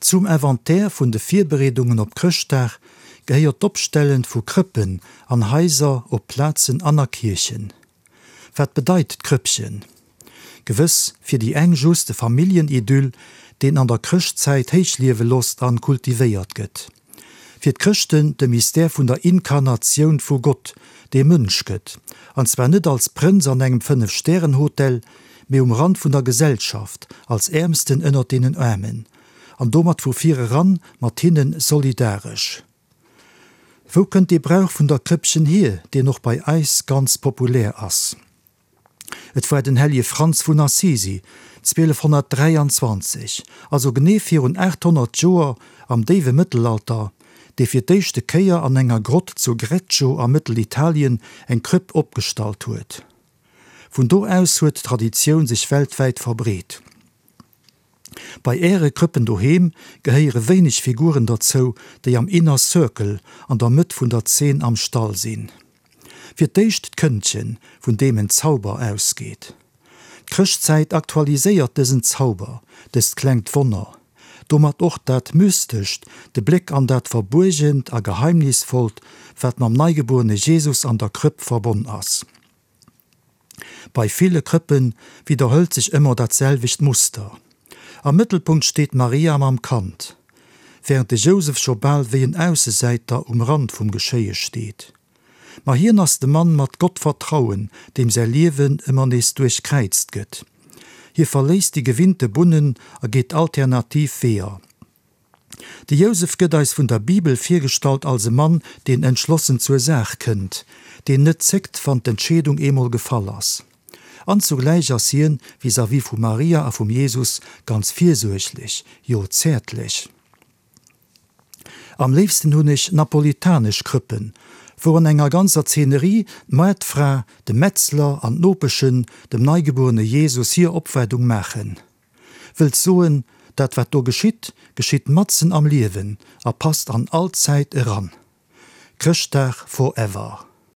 Zum Inventaire vun de Virbereedungen op Chrëschtdag gehéiert d'Opstellen vu Krëppen an Haiser, op Plazen an a Kierchen. Wat bedeit d'Krëppchen? Gewëss fir déi eng just e Familljenidyll, deen an der Chrëschtzäit héichliewe losst an kultivéiert gëtt. Fir d'Chrëschten de Mystère vun der Inkarnatioun vu Gott, dee Mënsch gëtt, an zwar net als Prënz an engem Fënnef-Stären-Hotel, mee um Rand vun der Gesellschaft, als Äermsten ënnert deenen Aarmen, an domat vu vir eran mat hinne solidaresch. Wou kënnt dee Brauch vun der Krëppchen hier, deen och bei eis ganz populär ass? Et war den Hellje Franz vun Assisi, 1223, also genee virun 800 Joer, am déiwe Mëttelalter, dee fir d'éischte Kéier an enger Grott zu Greccio a Mëttelitalien eng Krëpp opgestallt huet. Vun do aus huet d'Traditioun sech weltwäit verbreet. Bei Äre Krëppen doheem gehéiere wéineg Figuren derzou, déi am Inner Circle, an der Mëtt vun der Zeen am Stall sinn. Fir d'éischt d'Këndchen, vun deem en Zauber ausgeet. D'Chrëschtzäit aktualiséiert dësen Zauber, dëst klengt Wonner, domat och dat Mystescht, de Bléck an dat Verbuergent a Geheimnisvollt, wat mam neigebuerene Jesus an der Krëpp verbonn ass. Bei ville Krëppe widderhëlt sech ëmmer dat selwecht Muster. Am Mëttelpunkt steet d'Maria mam Kand, wärend de Jousef scho bal wéi en Aussesäiter um Rand vum Geschéie steet. Ma hien ass de Mann mat Gottvertrauen, deem säi Liewen ëmmer nees duerchkräizt gëtt. Hie verléisst déi gewinnte Bunnen a geet alternativ Weeër. De Jousef gëtt eis vun der Bibel virgestallt als e Mann, deen entschlossen zur Saach kënnt, deen net zéckt, wann d'Entscheedung eemol gefall ass. An zugläich ass hien vis-à-vis vu Maria a vum Jesus ganz virsuerglech, jo zäertlech. Am léifsten hunn ech napolitanesch Krëppen, wou an enger ganzer Zeenerie d'Moartfra, de Metzler an d'Nopeschen dem neigebuerene Jesus hir Opwaardung maachen. Wëllt soen, dat wat do geschitt, geschitt matzen am Liewen a passt an all Zäit eran. Chrëschtdag forever.